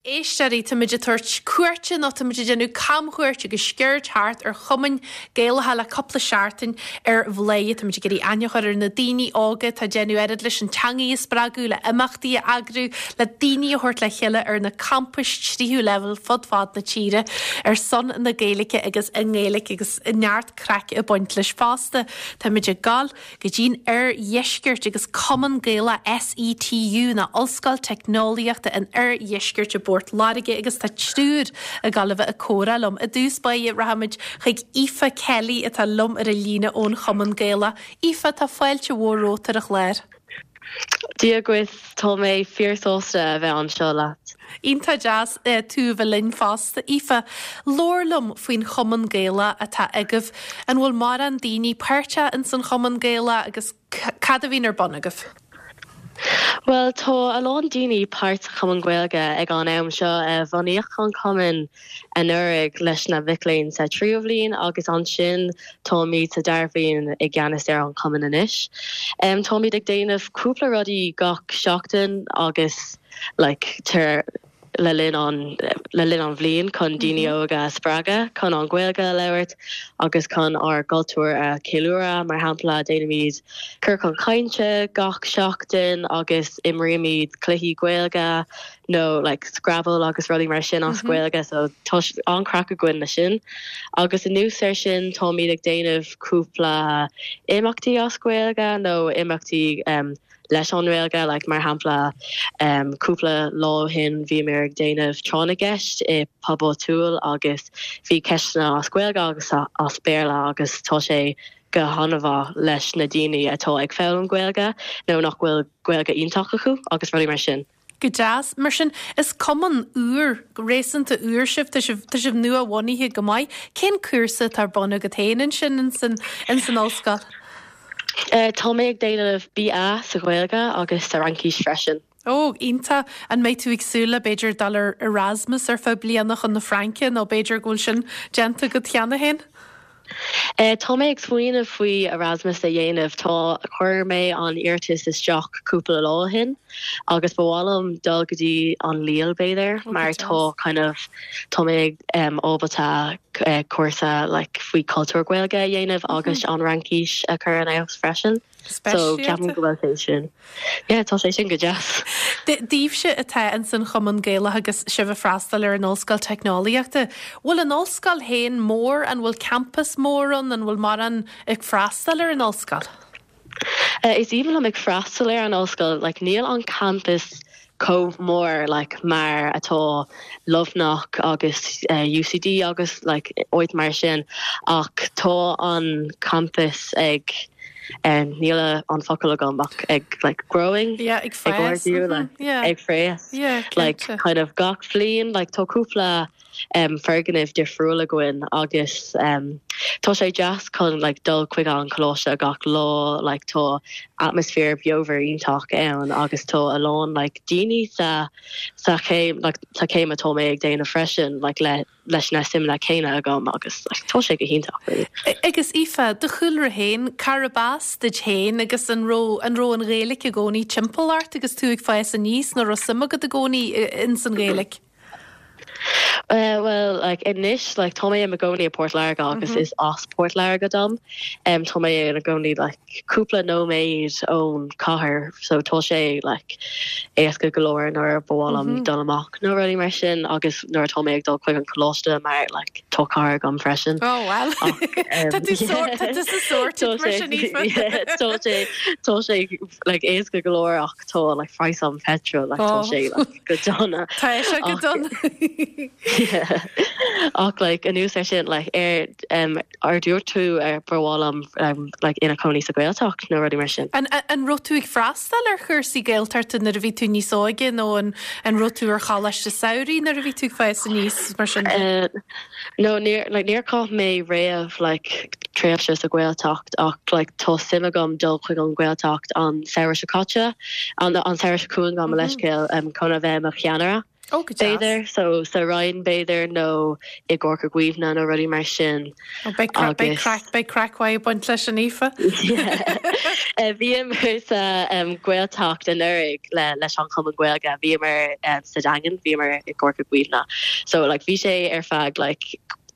Éisteoirí, táimid ag tabhairt cuairte nó táimid ag déanamh camchuairt agus sciuird thart ar chumainn Gaelacha le cúpla seachtain ar Bhladhaire. Táimid ag iarraidh aithne a chur ar na daoine óga atá ag déanamh oiread leis an teangaidh a spreagadh, le imeachtaí a eagrú, le daoine a thabhairt le chéile ar na campais tríú leibhéal fud fad na tíre ar son na Gaeilge agus i nGaeilge agus neart craic ag baint leis fosta. Táimid ag gabháil go dtí'n Oirdheisceart agus Cumann Gaelach SETU nó Ollscoil Teicneolaíochta an Oirdheiscirt i bPort Láirge agus tá triúr ag gabháil a bheith ag comhrá liom. I dtús báire rachaimid chuig Aoife Kelly atá liom ar an líne ón Chumann Gaelach. Aoife, tá fáilte mhór romhat ar an chlár. Dia dhuit, tá mé fíor-sásta a bheith anseo leat. Iontach deas tú a bheith linn fosta. Aoife, labhair liom faoin Chumann Gaelach atá agaibh. An bhfuil mórán daoine páirteach ins an Chumann Gaelach agus cad a bhíonn ar bun agaibh? Bhuel, tá a lán daoine páirt sa Chumann Gaeilge ag an am seo. Bunaíodh an cumann anuraidh leis na mhic léinn sa tríú bhliain agus ansin táimid sa dara bhliain i gceannas ar an chumann anois. Táimid ag déanamh cúpla rudaí gach seachtain agus like tar le linn an le linn an bhliain chun daoine óga a spreagadh chun an Ghaeilge a labhairt agus chun ár gcultúr a cheiliúradh. Mar shampla, déanaimid ciorcal cainte gach seachtain agus imrímid cluichí Gaeilge nó like Scrabble agus rudaí mar sin as Gaeilge so tá an-craic againn leis sin. Agus anuas ar sin táimid ag déanamh cúpla imeachtaí as Gaeilge nó imeachtaí um, leis an nGaeilge, like mar shampla um, cúpla lá ó shin bhíomar ag déanamh tráth na gceist i pub áitiúil agus bhí ceisteanna as Gaeilge agus as Béarla agus tá sé go han-mhaith leis na daoine atá ag foghlaim Gaeilge nó nach bhfuil Gaeilge iontach acu agus rudaí mar sin. Go deas. Mar sin, is cumann úr, réasúnta úr sibh, tá sibh, tá sibh nua-bhunaithe go maith. Cén cúrsa atá ar bun agat féin ansin ins an, ins an ollscoil? Tá mé ag déanamh BA sa Ghaeilge agus sa Fhraincis freisin. Ó, iontach. An mbeidh tú ag súil le, b'fhéidir, dul ar Erasmus ar feadh bliana chun na Fraince nó b'fhéidir go bhfuil sin déanta agat cheana féin? Tá mé ag smaoineamh faoi Erasmus a dhéanamh. Tá, chuir mé an iarratas isteach cúpla lá ó shin agus ba mhaith liom dul go dtí an Lille b'fhéidir mar tá kind of, tá mé ábalta cúrsa like faoi cultúr Gaeilge a dhéanamh agus an Fhraincis a chur in fheabhas freisin. So ceapaim go bhfuil sé sin. Yeah, tá sé sin go deas. Daoibhse atá ins an Chumann Gaelach agus sibh ag freastal ar an Ollscoil Teicneolaíochta, bhfuil an ollscoil féin mór? An bhfuil campas mór ann? An bhfuil mórán ag freastal ar an ollscoil? Is aoibhinn liom ag freastal ar an ollscoil. Like, níl an campas chomh mór like mar atá Luimneach agus UCD agus like áit mar sin ach tá an campas ag níl an focal agam ach ag like growing yeah, ag fás ag like, yeah. ag fás yeah, like kind of gach bhliain like tá cúpla um, foirgnimh difriúil againn agus um, tá sé deas chun like, dul chuig an choláiste gach lá like, tá atmaisféar beomhar iontach ann agus tá a lán like, daoine sa sa chéim like, sa chéim atá mé ag déanamh freisin like, le leis na suimeanna céanna agam agus like, tá sé go hiontach really. Agus Aoife, do chúlra féin, cárb as duit féin agus an raibh an raibh an Ghaeilge i gcónaí timpeall ort agus tú ag fás aníos nó raibh suim agat i gcónaí ins an Ghaeilge? Bhuel, like, anois, like, tá mé i mo gcónaí i Port Láirge agus is as Port Láirge dom. Um, tá mé i mo gcónaí, like, cúpla nóiméad ón chathair, so tá sé, like, éasca go leor nuair ba mhaith liom dul amach nó rudaí mar sin agus nuair atá mé ag dul chuig an choláiste mar, like, tá carr agam freisin. Oh, well, tá tú sort, tá tú sa sorted mar sin, Aoife. Tá sé, tá sé, like, éasca go leor ach tá, like, praghas an petrol, like, tá sé, like, go dona. Tá sé go dona. Ach like anuas ar sin like ar um, ar dúirt tú ar ba mhaith liom um, like ina cónaí sa Ghaeltacht nó rudaí mar sin. An, an raibh tú ag freastal ar chúrsaí Gaeltachta nuair a bhí tú níos óige nó an, an raibh tú ar choláiste samhraidh nuair a bhí tú ag fás aníos mar sin? Uh, no, níor, like, níor chaith mé riamh like, tréimhse sa Ghaeltacht ach like, tá suim agam dul chuig an Ghaeltacht an samhradh seo caite, an, an samhradh seo chugainn gabh mo leithscéal um, chun a bheith mo cheannaire. Ó, go deas. B'fhéidir, so sa Rinn b'fhéidir nó i gCorca Dhuibhne nó rudaí mar sin. Ó, beidh craic, beidh craic, beidh craic mhaith ag baint leis sin, Aoife. Yeah. Bhíomar sa Ghaeltacht anuraidh le leis an Chumann Gaeilge, bhíomar sa Daingean, bhíomar i gCorca Dhuibhne. So like bhí sé ar feadh like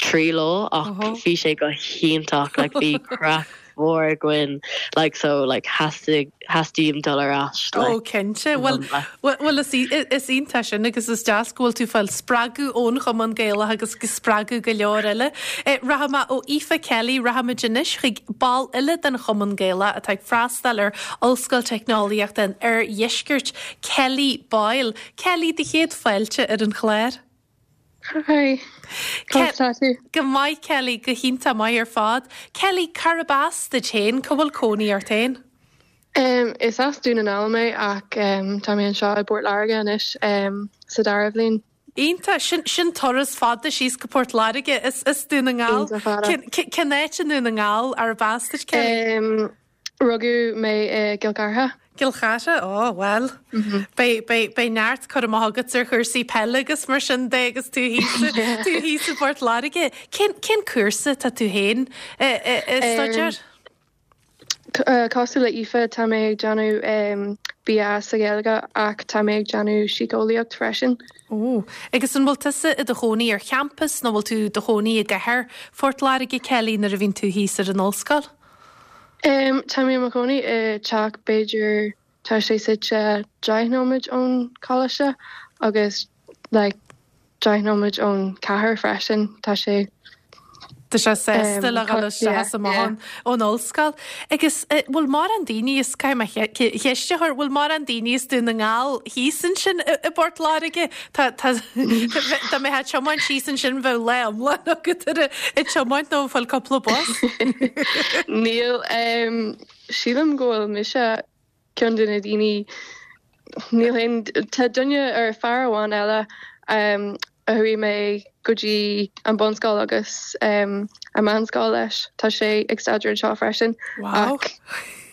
3 lá ach bhí sé go hiontach, like bhí craic mhór againn like so like theastaigh theastaím dul ar ais like. Oh cinnte. Bhuel bhuel is is iontach sin agus is deas go bhfuil tú ag fáil spreagadh ón Chumann Gaelach agus ag spreagadh go leor eile. Rachaidh mé ó Aoife Kelly rachaimid anois chuig ball eile den Chumann Gaelach atá ag freastal ar Ollscoil Teicneolaíochta an Oirdheiscirt, Kelly Boyle. Kelly, do chéad fáilte ar an chlár. Hi, conas tá tú? Go maith Kelly, go hiontach maith ar fad. Kelly, cárb as duit féin? Cá bhfuil cónaí ort féin? Is as Dún na nGall mé ach tá mé anseo i bPort Láirge anois sa dara bhliain. Iontach, sin, sin turas fada síos go Port Láirge as, as Dún na nGall. Iontach fada. Cén, cén áit i nDún na nGall arb as duit Kelly? Rugadh mé i gCill Chartha. Cill Chartha, ó bhuel, beidh, beidh, beidh neart cur amach agat ar chúrsaí peile agus mar sin de agus tú thíos, tú thíos i bPort Láirge. Cén, cén cúrsa atá tú féin ag staidéar? Cosúil le Aoife, tá mé ag déanamh BA sa Ghaeilge ach tá mé ag déanamh síceolaíocht freisin. Ó, agus an bhfuil tusa i do chónaí ar champas nó bhfuil tú i do chónaí i gcathair Phort Láirge, Kelly, nuair a bhíonn tú thíos ar an ollscoil? Tá mé i mo chónaí i teach b'fhéidir tá sé suite 10 nóiméad ón choláiste agus like 10 nóiméad ón cathair freisin. Tá sé. Tá sé sásta le dhul isteach is amach ón ollscoil. Agus bhfuil mórán daoine as, caithfidh mé ceist a chur, bhfuil mórán daoine as Dún na nGall thíos ansin i bPort Láirge? Tá, tá, dá mbeifeá ag tiomáint síos ansin bheadh lá iomlán agat ar ag tiomáint nó ag fáil cúpla bus. Níl, sílim go bhfuil mise ceann de na daoine, níl aon, tá duine ar fear amháin eile a chuaigh mé go dtí an bunscoil agus an meánscoil leis, tá sé ag staidéar anseo freisin ach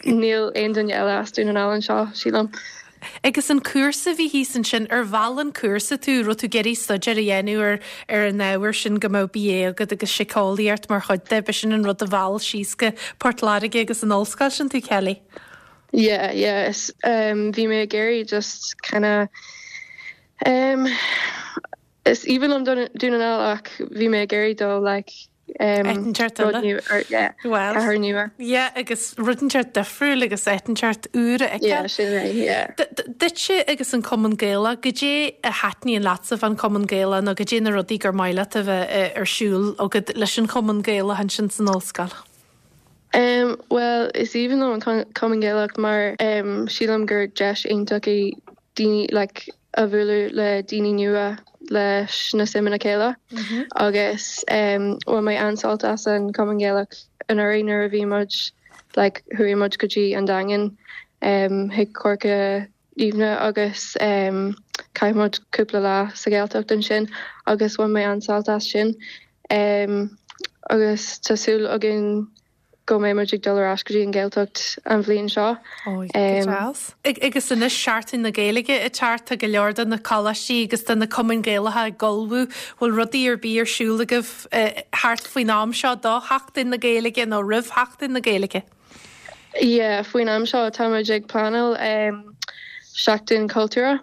níl aon duine eile as Dún na nGall anseo, sílim. Agus an cúrsa a bhí thíos ansin, ar mheall an cúrsa tú, raibh tú ag iarraidh staidéar a dhéanamh ar ar an ábhar sin go mbeadh BA agat agus síceolaíocht mar chuid de, b'shin an rud a mheall síos go Port Láirge agus an ollscoil sin tú, Kelly? Yeah, yeah, is um bhí mé ag iarraidh just kinda um is aoibhinn liom Dún na nGall ach bhí mé ag iarraidh dul like Áit rud nua or yeah, Well, cathair nua. yeah, agus rud inteacht difriúil agus áit inteacht úr a fheiceáil. Yeah, sin é, yeah. Duitse agus an Cumann Gaelach, goidé a thaitníonn leatsa fán Chumann Gaelach nó goidé na rudaí gur maith leat a bheith ar siúl agat leis an Chumann Gaelach ansin san ollscoil? Um, bhuel, is aoibhinn liom an Cumann Gaelach mar um, sílim gur deis iontach í daoine like, a bhualadh le daoine nua leis na suimeanna céanna agus um, bhain mé an-sult as an Cumann Gaelach anuraidh nuair a bhí muid like, chuaigh muid go dtí an Daingean um, chuig Corca Dhuibhne agus um, chaith muid cúpla lá sa Ghaeltacht ansin agus bhain mé an-sult as sin um, agus tá súil againn go mbeidh muid ag dul ar ais go dtí an Ghaeltacht an bhliain seo. Ó, go deas. Agus anois Seachtain na Gaeilge ag teacht, tá go leor de na coláistí agus de na cumainn Ghaelacha ag ullmhú. Bhfuil rudaí ar bith ar siúl agaibh thart faoin am seo do Sheachtain na Gaeilge nó roimh Sheachtain na Gaeilge? Yeah, faoin am seo tá muid ag pleanáil Seachtain Cultúrtha,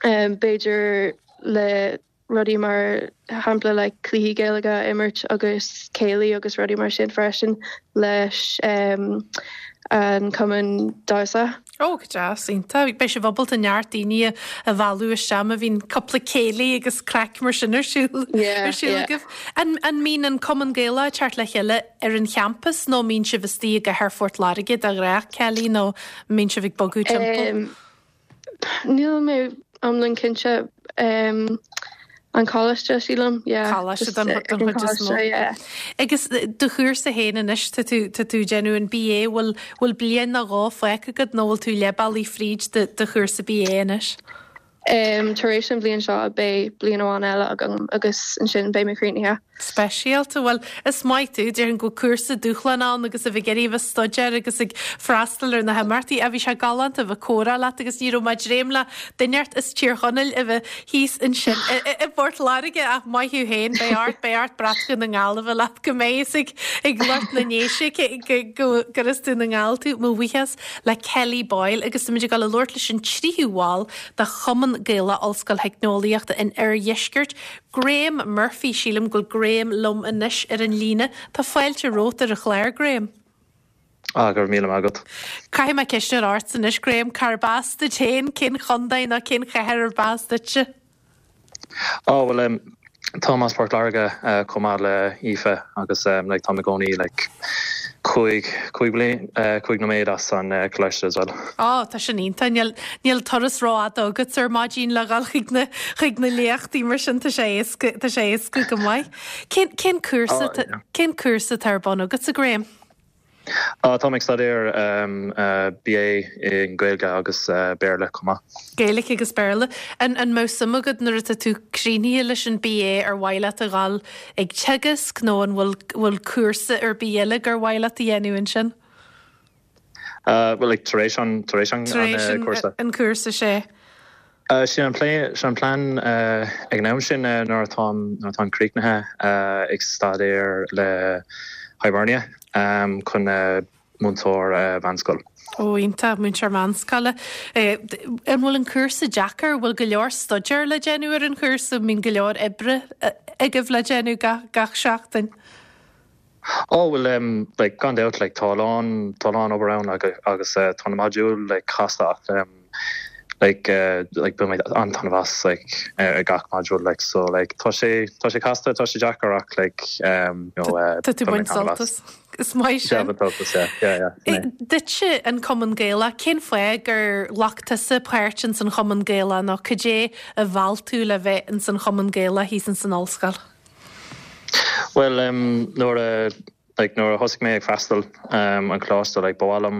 b'fhéidir le rudaí mar shampla like cluichí Gaeilge a imirt agus céilí agus rudaí mar sin freisin leis an cumann damhsa. Ó, go deas, iontach. Beidh sibh ábalta neart daoine a mhealladh isteach má bhíonn cúpla céilí agus craic mar sin ar siúl ar siúl agaibh. An an mbíonn an Cumann Gaelach ag teacht le chéile ar an champas nó an mbíonn sibh istigh i gcathair Phort Láirge de ghnáth, Kelly, nó an mbíonn sibh ag bogadh timpeall? Níl mé iomlán cinnte. An coláiste, sílim. Yeah. Coláiste don chuid is mó. Yeah. Agus do chúrsa féin anois, tá tú tá tú ag déanamh an BA, bhfuil bhfuil bliain nó dhó fágtha agat nó bhfuil tú leath bealaigh fríd do do chúrsa BA anois? Tar éis an bhliain seo beidh bliain amháin eile agam agus ansin beidh mé críochnaithe. Speisialta. Bhuel, is maith tú. Déarfainn go bhfuil cúrsa dúshlánach ann agus a bheith ag iarraidh a bheith ag staidéar agus ag freastal ar na himeachtaí. Ach bhí sé galánta a bheith ag comhrá leat agus ní raibh mé ag dréim le duine inteacht as Tír Chonaill a bheith thíos ansin i bPort Láirge ach maith thú féin. Beidh ort, beidh ort brat Dhún na nGall a bheith leat go mbeidh fhios ag ag lucht na nDéise go gur as Dún na nGall tú. Mo bhuíochas le Kelly Boyle agus táimid ag dul a labhairt leis an tríú bhall de Chumann Gaelach Ollscoil Theicneolaíochta an Oirdheiscirt, Graham Murphy. Sílim go bhfuil Graham liom anois ar an líne. Tá fáilte romhat ar an chlár, Graham. Ah, go raibh míle maith agat. Caithfidh mé ceist a chur ort anois, Graham, cárb as duit féin? Cén chontae nó cén chathair arb as duitse? Á, bhuel, em, táim as Port Láirge chomh maith le Aoife agus em, like, táim i gcónaí like cúig, cúig bliain, cúig nóiméad as an coláiste as well. Á, tá sin iontach. Níl, níl turas rófhada agat ar maidin le dhul chuig na, chuig na léachtaí mar sin, tá sé éasca, tá sé éasca go maith. Cén, cén cúrsa, Á, yeah. cén cúrsa atá ar bun agatsa, Graham? Táim ag staidéar BA i nGaeilge agus Béarla chomh maith. Gaeilge agus Béarla. An mbeadh suim agat nuair atá tú críochnaithe leis an BA ar mhaith leat a dhul ag teagasc nó an bhfuil bhfuil cúrsa ar bith eile gur mhaith leat a dhéanamh ansin? Bhuel like tar éis an tar éis an cúrsa. An cúrsa sea. Sin an plé, sin an plean ag an am sin nuair atáim, nuair atáim críochnaithe ag staidéar le Hibernia chun múinteoir mheánscoil. Ó, iontach, múinteoir meánscoile. An bhfuil an cúrsa deacair? Bhfuil go leor staidéir le déanamh ar an chúrsa? An mbíonn go leor oibre agaibh le déanamh gach seachtain? Ó bhuel em like gan dabht like tá a lán tá a lán obair ann agus eh tá na modúil like casta ach em like eh like bíonn mé an-taitneamh as like ar gach modúl like so like tá sé tá sé casta tá sé deacair ach like em you know eh Tá tú ag baint sult as. Is maith sin. Yeah, baint sult as yeah yeah yeah sin é. Duitse an Cumann Gaelach, cén fáth gur ghlac tusa páirt ins an Chumann Gaelach nó cad é a mheall tú le bheith ins an Chumann Gaelach thíos ins an ollscoil? Bhuel nuair a like nuair a thosaigh mé ag freastal an coláiste like ba mhaith liom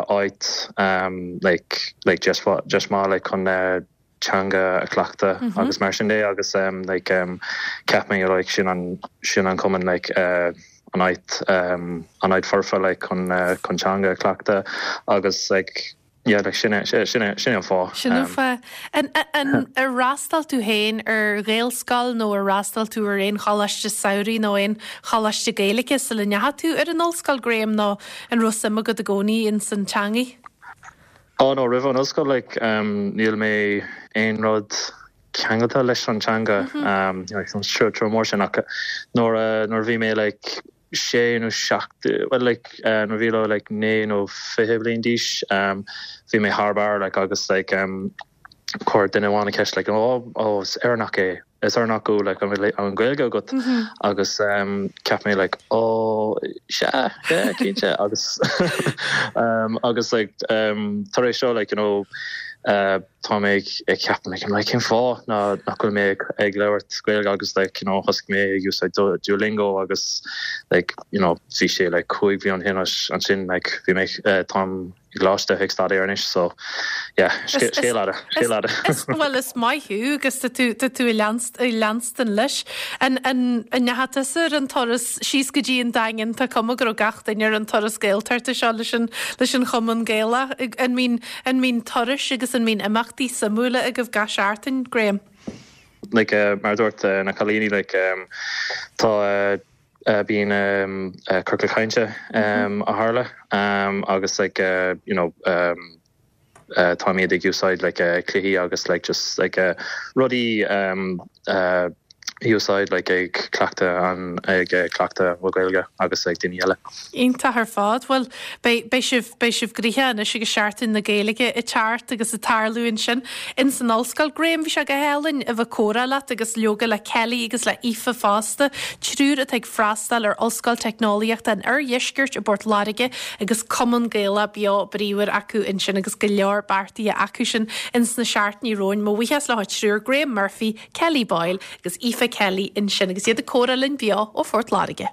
áit like like deis deis maith like chun teanga a chleachtadh agus mar sin de agus like cheap mé like sin an sin an cumann like an áit an áit foirfe like chun chun teanga a chleachtadh agus like Yeah, like sin é, sin é, sin é an fáth. Sin an fáth. An, an, ar fhreastail tú féin ar Ghaelscoil nó ar fhreastail tú ar aon choláiste samhraidh nó aon choláiste Gaeilge sula ndeachaigh tú ar an ollscoil, Graham, nó an raibh suim agat i gcónaí ins an teangaidh? Oh no, roimh an ollscoil, like, um, níl mé aon rud ceangailte leis an teanga, um, like, an treo mór sin ach nuair a, nuair a bhí mé, like, sé nó seacht, bhuel like nuair a bhí mé like 19 nó 20 bliain d'aois bhí mé thar barr like agus like chuir duine amháin an ceist like oh oh is Éireannach é is Éireannach thú like an bhfuil an Ghaeilge agat agus cheap mé like oh sea yeah cinnte agus agus like tar éis seo like you know tá mé ag ceapadh like like cén fáth ná nach bhfuil mé ag labhairt Gaeilge agus like you know thosaigh mé ag úsáid Duolingo agus like you know bhí sé like 5 bhliain ó shin ansin like bhí mé táim i gcoláiste ag staidéar anois so yeah scéal fhada scéal fhada. Bhuel is maith thú agus tá tú tá tú ag leanstan leis. An an an ndeachaigh tusa ar an turas síos go dtí an Daingean tá cuma go raibh gach duine ar an turas Gaeltachta seo leis an leis an Chumann Gaelach an mbíonn An mbíonn turais agus an mbíonn imeachtaí suimiúla agaibh gach seachtain, Graham? Like, mar a dúirt na cailíní, like, tá, bíonn ciorcal cainte a tharla agus like, you know, táimid ag úsáid like cluichí agus like just like rudaí úsáid like ag cleachtadh an ag cleachtadh mo Ghaeilge agus ag daoine eile. Iontach ar fad. Bhuel, beidh, beidh sibh, beidh sibh gnoitheach anois agus Seachtain na Gaeilge ag teacht agus ag tarlú ansin ins an ollscoil. Graham, bhí sé go hálainn a bheith ag comhrá leat agus leoga le Kelly agus le Aoife fosta, triúr atá ag freastal ar Ollscoil Teicneolaíochta an Oirdheiscirt i bPort Láirge agus Cumann Gaelach beo bríomhar acu ansin agus go leor beartaithe acu sin ins na seachtainí romhainn. Mo bhuíochas leo triúr, Graham Murphy, Kelly Boyle agus Aoife Kelly ansin agus iad ag comhrá linn beo ó Phort Láirge.